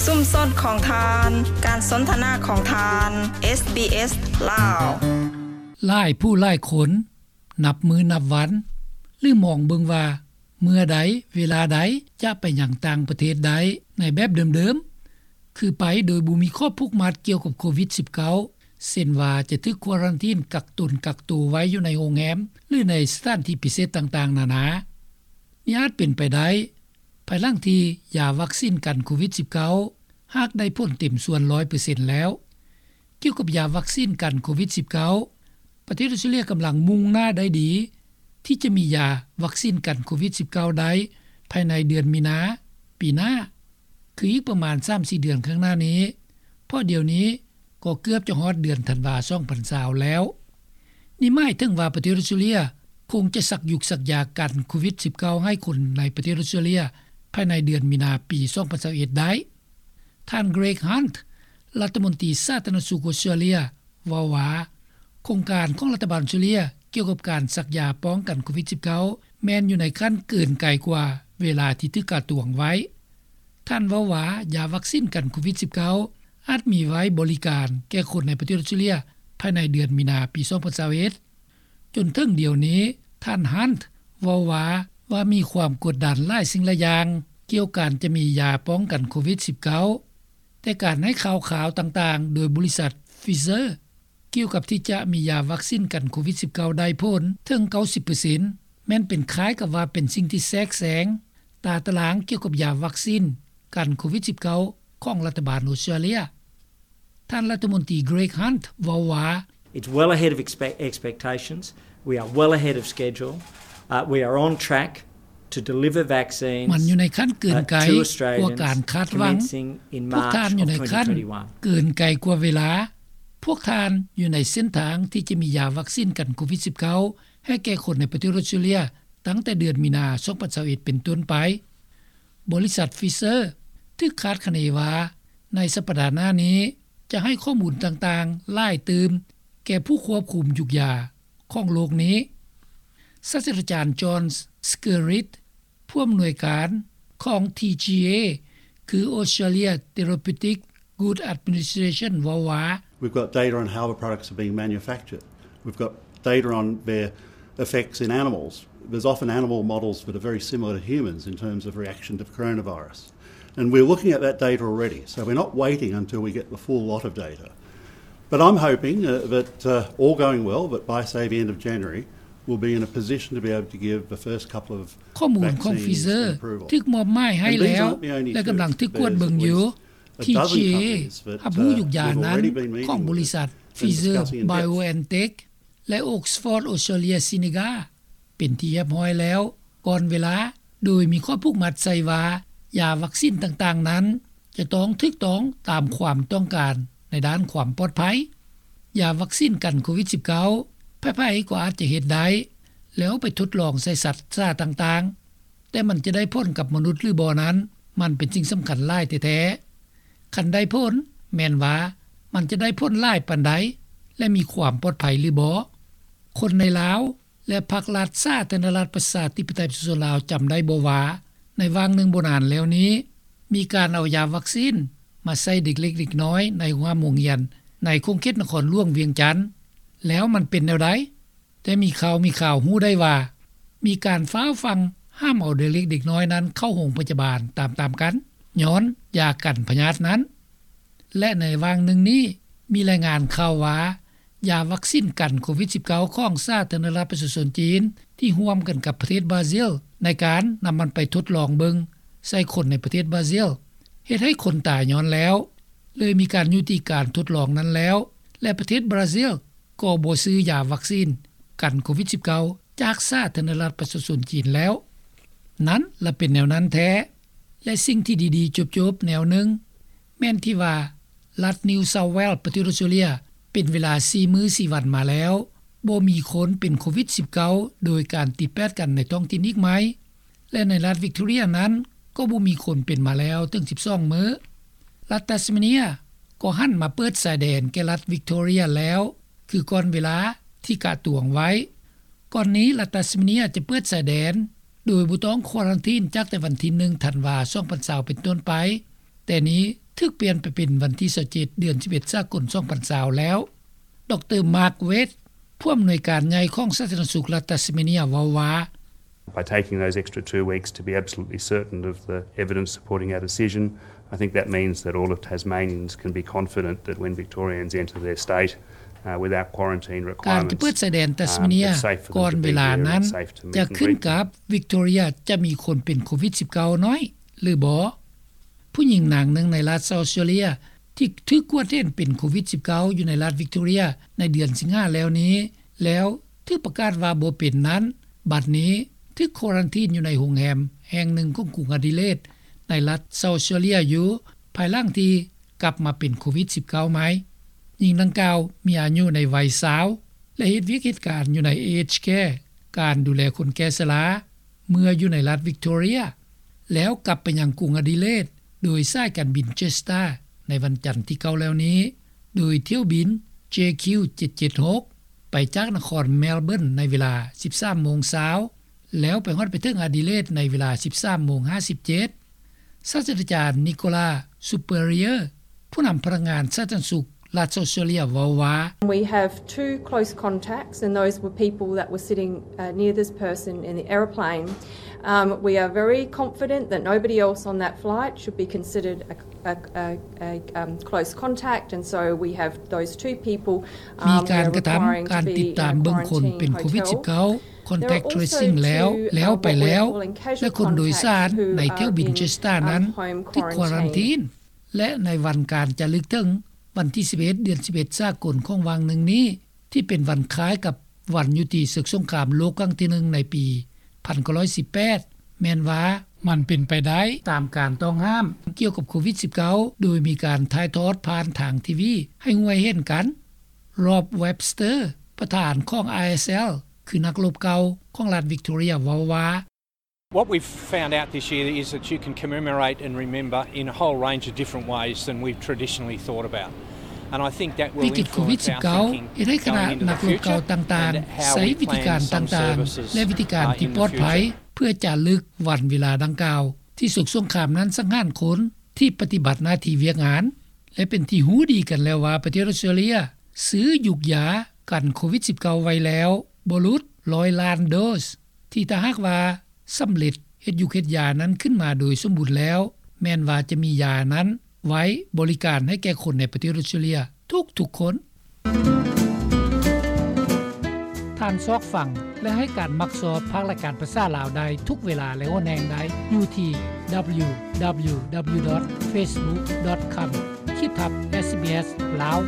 ຊຸມຊົນຂອງທ່ານ, ການສົນທະນາຂອງທ່ານ, ເອສບີເອສ ລາວ. ຫຼາຍຜູ້ຫຼາຍຄົນນັບມື້ນັບວັນ ຫຼືມອງເບິ່ງວ່າເມື່ອໃດເວລາໃດຈະໄປຍັງຕ່າງປະເທດໄດ້ໃນແບບເດີມໆ ຄືໄປໂດຍບໍ່ມີຂໍ້ຜູກມັດກ່ຽວກັບໂຄວິດສິບເກົ້າ ເຊັ່ນວ່າຈະຖືກຄວາຣັນທີນກັກຕົນກັກໂຕໄວ້ຢູ່ໃນໂຮງແຮມ ຫຼືໃນສະຖານທີ່ພິເສດຕ່າງໆນານາ. ນີ້ອາດເປັນໄປໄດ້ ພາຍຫຼັງທີ່ຢາວັກຊີນກັນໂຄວິດສິບເກົ້າ ຫາກໄດ້ຜົນເຕັມສ່ວນຮ້ອຍເປີເຊັນແລ້ວ. ກ່ຽວກັບຢາວັກຊີນກັນໂຄວິດສິບເກົ້າ ປະເທດອອສເຕຣເລຍກຳລັງມຸ່ງໜ້າໄດ້ດີ ທີ່ຈະມີຢາວັກຊີນກັນໂຄວິດສິບເກົ້າໄດ້ພາຍໃນເດືອນມີນາປີໜ້າ ຄືອີກປະມານສາມສີ່ເດືອນຂ້າງໜ້ານີ້ ເພາະດຽວນີ້ກໍເກືອບຈະຮອດເດືອນທັນວາສອງພັນຊາວແລ້ວ. ນີ້ໝາຍເຖິງວ່າປະເທດອອສເຕຣເລຍຄົງຈະສັກຢຸກສັກຢາກັນໂຄວິດສິບເກົ້າໃຫ້ຄົນໃນປະເທດອອສເຕຣເລຍພາຍໃນເດືອນມີນາປີສອງພັນຊາວເອັດໄດ້. ທ່ານ Greg Hunt ລັດຖະມົນຕີສາທາລະນະສຸກອອສເຕຣເລຍ ເວົ້າວ່າ ໂຄງການຂອງລັດຖະບານອອສເຕຣເລຍກ່ຽວກັບການສັກຢາປ້ອງກັນໂຄວິດສິບເກົ້າ ແມ່ນຢູ່ໃນຂັ້ນເກີນໄກກວ່າເວລາທີ່ຖືກກະຕວງໄວ້. ທ່ານເວົ້າວ່າ ຢາວັກຊີນກັນໂຄວິດສິບເກົ້າ ອາດມີໄວ້ບໍລິການແກ່ຄົນໃນປະເທດອອສເຕຣເລຍພາຍໃນເດືອນມີນາປີສອງພັນຊາວເອັດ. ຈົນເຖິງດຽວນີ້ ທ່ານ Hunt ເວົ້າວ່າ ວ່າມີຄວາມກົດດັນຫຼາຍສິ່ງຫຼາຍຢ່າງກ່ຽວການຈະມີຢາປ້ອງກັນໂຄວິດສິບເກົ້າ ແຕ່ການໃຫ້ຂ່າວຄາວຕ່າງໆໂດຍບໍລິສັດ Pfizer ກ່ຽວກັບທີ່ຈະມີຢາວັກຊີນກັນໂຄວິດສິບເກົ້າໄດ້ຜົນເຖິງເກົ້າສິບເປີເຊັນ ແມ່ນເປັນຄ້າຍກັບວ່າເປັນສິ່ງທີ່ແຊກແຊງຕາຕະລາງກ່ຽວກັບຢາວັກຊີນກັນໂຄວິດສິບເກົ້າຂອງລັດຖະບານອອສເຕຣເລຍ. ທ່ານລັດຖະມົນຕີ Greg Hunt ເວົ້າວ່າ It's well ahead of expe- expectations. We are well ahead of schedule. Uh, we are on track to deliver vaccines, ມັນຢູ່ໃນຂັ້ນເກີນໄກ uh, to Australians ກວ່າການຄາດຫວັງ. Commencing in March of twenty twenty-one. ພວກທ່ານຢູ່ໃນຂັ້ນເກີນໄກກວ່າເວລາ. ພວກທ່ານຢູ່ໃນເສັ້ນທາງທີ່ຈະມີຢາວັກຊີນກັນໂຄວິດສິບເກົ້າໃຫ້ແກ່ຄົນໃນປະເທດອອສເຕຣເລຍ ຕັ້ງແຕ່ເດືອນມີນາສອງພັນຊາວເອັດເປັນຕົ້ນໄປ. ບໍລິສັດ Pfizer ຖືກຄາດຄະເນວ່າ ໃນສັບປະດາໜ້ານີ້ຈະໃຫ້ຂໍ້ມູນຕ່າງໆຫຼາຍຕື່ມແກ່ຜູ້ຄວບຄຸມຢຸກຢາຂອງໂລກນີ້. ສາດສະດາຈານ John Skerritt ຜູ້ອຳນວຍການຂອງ TGA ຄື Australia Therapeutic Goods Administration ເວົ້າວ່າ We've got data on how the products are being manufactured. We've got data on their effects in animals. There's often animal models that are very similar to humans in terms of reaction to the coronavirus. And we're looking at that data already, so we're not waiting until we get the full lot of data. But I'm hoping, uh, that, uh, all going well, that by, say, the end of January, we'll be in a position to be able to give the first couple of ຂໍ້ມູນຂອງ Pfizer ຖືກມອບໝາຍໃຫ້ແລ້ວ ແລະ ກຳລັງຖືກກວດເບິ່ງຢູ່. TGA ຮັບຮູ້ຢູ່ຢານັ້ນຂອງບໍລິສັດ Pfizer BioNTech ແລະ Oxford Australia Seneca ເປັນທີ່ຮຽບຮ້ອຍແລ້ວ. ກ່ອນເວລາ ໂດຍມີຂໍ້ຜູກມັດໃສ່ວ່າ ຢາວັກຊີນຕ່າງໆນັ້ນ ຈະຕ້ອງຖືກຕ້ອງຕາມຄວາມຕ້ອງການໃນດ້ານຄວາມປອດໄພ. ຢາວັກຊີນກັນໂຄວິດສິບເກົ້າ ໃຜໆກໍອາດຈະເຮັດໄດ້ ແລ້ວໄປທົດລອງໃສ່ສັດຊາຕ່າງໆ, ແຕ່ມັນຈະໄດ້ຜົນກັບມະນຸດຫຼືບໍ່ນັ້ນ ມັນເປັນສິ່ງສຳຄັນຫຼາຍແທ້ໆ. ຄັນໄດ້ຜົນ ແມ່ນວ່າມັນຈະໄດ້ຜົນຫຼາຍປານໃດ ແລະ ມີຄວາມປອດໄພຫຼືບໍ່? ຄົນໃນລາວ ແລະ ພັກລັດສາທາລະນະລັດປະຊາທິປະໄຕປະຊາຊົນລາວ ຈຳໄດ້ບໍ່ວ່າ ໃນຫວ່າງໜຶ່ງບໍ່ນານແລ້ວນີ້ ມີການເອົາຢາວັກຊີນມາໃສ່ເດັກເລັກເດັກນ້ອຍໃນໂຮງຮຽນ ໃນຂົງເຂດນະຄອນຫຼວງວຽງຈັນ ແລ້ວມັນເປັນແນວໃດ? ແຕ່ມີຂ່າວມີຂ່າວຮູ້ໄດ້ວ່າ ມີການຟ້າວຟັ່ງຫ້າມເອົາເດັກເລັກເດັກນ້ອຍນັ້ນເຂົ້າໂຮງພະຍາບານຕາມໆກັນ ຍ້ອນຢາກັນພະຍາດນັ້ນ. ແລະ ໃນຫວ່າງໜຶ່ງນີ້ ມີລາຍງານຂ່າວວ່າ ຢາວັກຊີນກັນໂຄວິດສິບເກົ້າຂອງສາທາລະນະລັດປະຊາຊົນຈີນ ທີ່ຮ່ວມກັນກັບປະເທດບຣາຊິລ ໃນການນຳມັນໄປທົດລອງເບິ່ງໃສ່ຄົນໃນປະເທດບຣາຊິລ ເຮັດໃຫ້ຄົນຕາຍຍ້ອນແລ້ວ ເລີຍມີການຍຸຕິການທົດລອງນັ້ນແລ້ວ ແລະ ປະເທດບຣາຊິລກໍບໍ່ຊື້ຢາວັກຊີນກັນໂຄວິດສິບເກົ້າຈາກສາທາລະນະລັດປະຊາຊົນຈີນແລ້ວ. ນັ້ນລະເປັນແນວນັ້ນແທ້. ແລະ ສິ່ງທີ່ດີໆຈົບໆແນວໜຶ່ງ ແມ່ນທີ່ວ່າ ລັດ New South Wales ປະເທດອອສເຕຣເລຍ ເປັນເວລາສີ່ມື້ສີ່ວັນມາແລ້ວ ບໍ່ມີຄົນເປັນໂຄວິດສິບເກົ້າໂດຍການຕິດແປດກັນໃນທ້ອງຖິ່ນອີກໃໝ່ ແລະ ໃນລັດ Victoria ນັ້ນ ກໍບໍ່ມີຄົນເປັນມາແລ້ວເຖິງສິບສອງມື້. ລັດ Tasmania ກໍຫັນມາເປີດຊາຍແດນແກ່ລັດ Victoria ແລ້ວ ຄືກ່ອນເວລາທີ່ກະຕວງໄວ້. ກ່ອນນີ້ລັດ Tasmania ຈະເປີດຊາຍແດນໂດຍບໍ່ຕ້ອງຄວາຣັນທີນ ຈາກແຕ່ວັນທີໜຶ່ງທັນວາສອງພັນຊາວເປັນຕົ້ນໄປ, ແຕ່ນີ້ ຖືກປ່ຽນໄປເປັນວັນທີຊາວເຈັດ ເດືອນສິບເອັດ ສາກົນ ສອງພັນຊາວແລ້ວ. ດຣ Mark Waite ຜູ້ອຳນວຍການໃຫຍ່ຂອງສາທາລະນະສຸກລັດຕັດສະເມເນຍ ເວົ້າວ່າ By taking those extra two weeks to be absolutely certain of the evidence supporting our decision, I think that means that all of Tasmanians can be confident that when Victorians enter their state, uh, without quarantine requirements, ການຈະເປີດຊາຍແດນແຕສເມເນຍກ່ອນເວລານັ້ນ ຈະຂຶ້ນກັບວິກໂຕເຣຍຈະມີຄົນເປັນໂຄວິດສິບເກົ້າ ໜ້ອຍ ຫຼື ບໍ່. ຜູ້ຍິງນາງໜຶ່ງໃນລັດເຊົາເຊເລຍ ທີ່ຖືກກວດເຫັນເປັນໂຄວິດສິບເກົ້າ ຢູ່ໃນລັດວິກໂຕເຣຍ ໃນເດືອນສິງຫາແລ້ວນີ້ ແລ້ວຖືກປະກາດວ່າບໍ່ເປັນນັ້ນ ບັດນີ້ຖືກຄວາຣັນທີນຢູ່ໃນໂຮງແຮມແຫ່ງໜຶ່ງຂອງກຸງອະດີເລດ ໃນລັດເຊົາເຊເລຍຢູ່ ພາຍຫຼັງທີ່ກັບມາເປັນໂຄວິດສິບເກົ້າໃໝ່. ຍິງດັ່ງກ່າວມີອາຍຸໃນໄວຊາວ ແລະ ເຮັດວຽກເຮັດການຢູ່ໃນ Aged Care ການດູແລຄົນແກ່ຊະລາ ເມື່ອຢູ່ໃນລັດວິກໂຕເຣຍ ແລ້ວກັບໄປຍັງກຸງອະດີເລດ ໂດຍສາຍການບິນ Jetstar ໃນວັນຈັນທີເກົ້າແລ້ວນີ້ ໂດຍຖ້ຽວບິນ ເຈຄິວ ເຈັດເຈັດຫົກ ໄປຈາກນະຄອນ Melbourne ໃນເວລາ ສິບສາມໂມງຊາວ ແລ້ວໄປຮອດໄປເຖິງອະດີເລດໃນເວລາ ສິບສາມໂມງຫ້າສິບເຈັດ. ສາດສະດາຈານ Nicola Spurrier ຜູ້ນຳພະນັກງານສາທາລະນະສຸກລັດເຊົາເຊເລຍ ເວົ້າວ່າ We have two close contacts, and those were people that were sitting, uh, near this person in the aeroplane. Um, we are very confident that nobody else on that flight should be considered a, a, a, a, um, close contact, and so we have those two people, um, ມີການກະທຳການຕິດຕາມເບິ່ງຄົນເປັນໂຄວິດສິບເກົ້າ contact tracing ແລ້ວ ແລ້ວໄປແລ້ວ ແລະ ຄົນໂດຍສານໃນຖ້ຽວບິນ Jetstar ນັ້ນຖືກຄວາຣັນທີນ ແລະ ໃນວັນການຈາລຶກເຖິງວັນທີສິບເອັດ ເດືອນສິບເອັດ ສາກົນຂອງຫວ່າງໜຶ່ງນີ້ ທີ່ເປັນວັນຄ້າຍກັບວັນຍຸຕິເສິກສົງຄາມໂລກຄັ້ງທີໜຶ່ງໃນປີພັນເກົ້າຮ້ອຍສິບແປດ ແມ່ນວ່າມັນເປັນໄປໄດ້ຕາມການຕ້ອງຫ້າມກ່ຽວກັບໂຄວິດສິບເກົ້າ ໂດຍມີການຖ່າຍທອດຜ່ານທາງທີວີໃຫ້ຮູ້ໃຫ້ເຫັນກັນ. Rob Webster ປະທານຂອງ ISL ຄືນັກລົບເກົ່າຂອງລັດວິກໂຕເຣຍ ເວົ້າວ່າ What we've found out this year is that you can commemorate and remember in a whole range of different ways than we've traditionally thought about. And I think that will influence our thinking going into the future. ວິກິດໂຄວິດສິບເກົ້າ ເຮັດໃຫ້ຄະນະນັກລົບເກົ່າຕ່າງໆ ໃຊ້ວິທີການຕ່າງໆ ແລະ ວິທີການທີ່ປອດໄພ ເພື່ອຈາລຶກວັນເວລາດັ່ງກ່າວ ທີ່ເສິກສົງຄາມນັ້ນສັງຫານຄົນທີ່ປະຕິບັດໜ້າທີ່ວຽກງານ ແລະ ເປັນທີ່ຮູ້ດີກັນແລ້ວວ່າ ປະເທດອອສເຕຣເລຍຊື້ຢູກຢາກັນໂຄວິດສິບເກົ້າໄວ້ແລ້ວບໍ່ຫຼຸດຮ້ອຍລ້ານໂດສ ທີ່ຖ້າຫາກວ່າ ສຳເລັດເຮັດຢູກເຮັດຢານັ້ນຂຶ້ນມາໂດຍສົມບູນແລ້ວ ແມ່ນວ່າຈະມີຢານັ້ນໄວ້ບໍລິການໃຫ້ແກ່ຄົນໃນປະເທດອອສເຕຣເລຍທຸກໆຄົນ. ທ່ານຊອກຟັງ ແລະ ໃຫ້ການມັກຊອບພາກລາຍການພາສາລາວໄດ້ທຸກເວລາ ແລະ ຫົນແຫ່ງໃດ ຢູ່ທີ່ www.facebook.com ຂີດທັບ SBS ລາວ.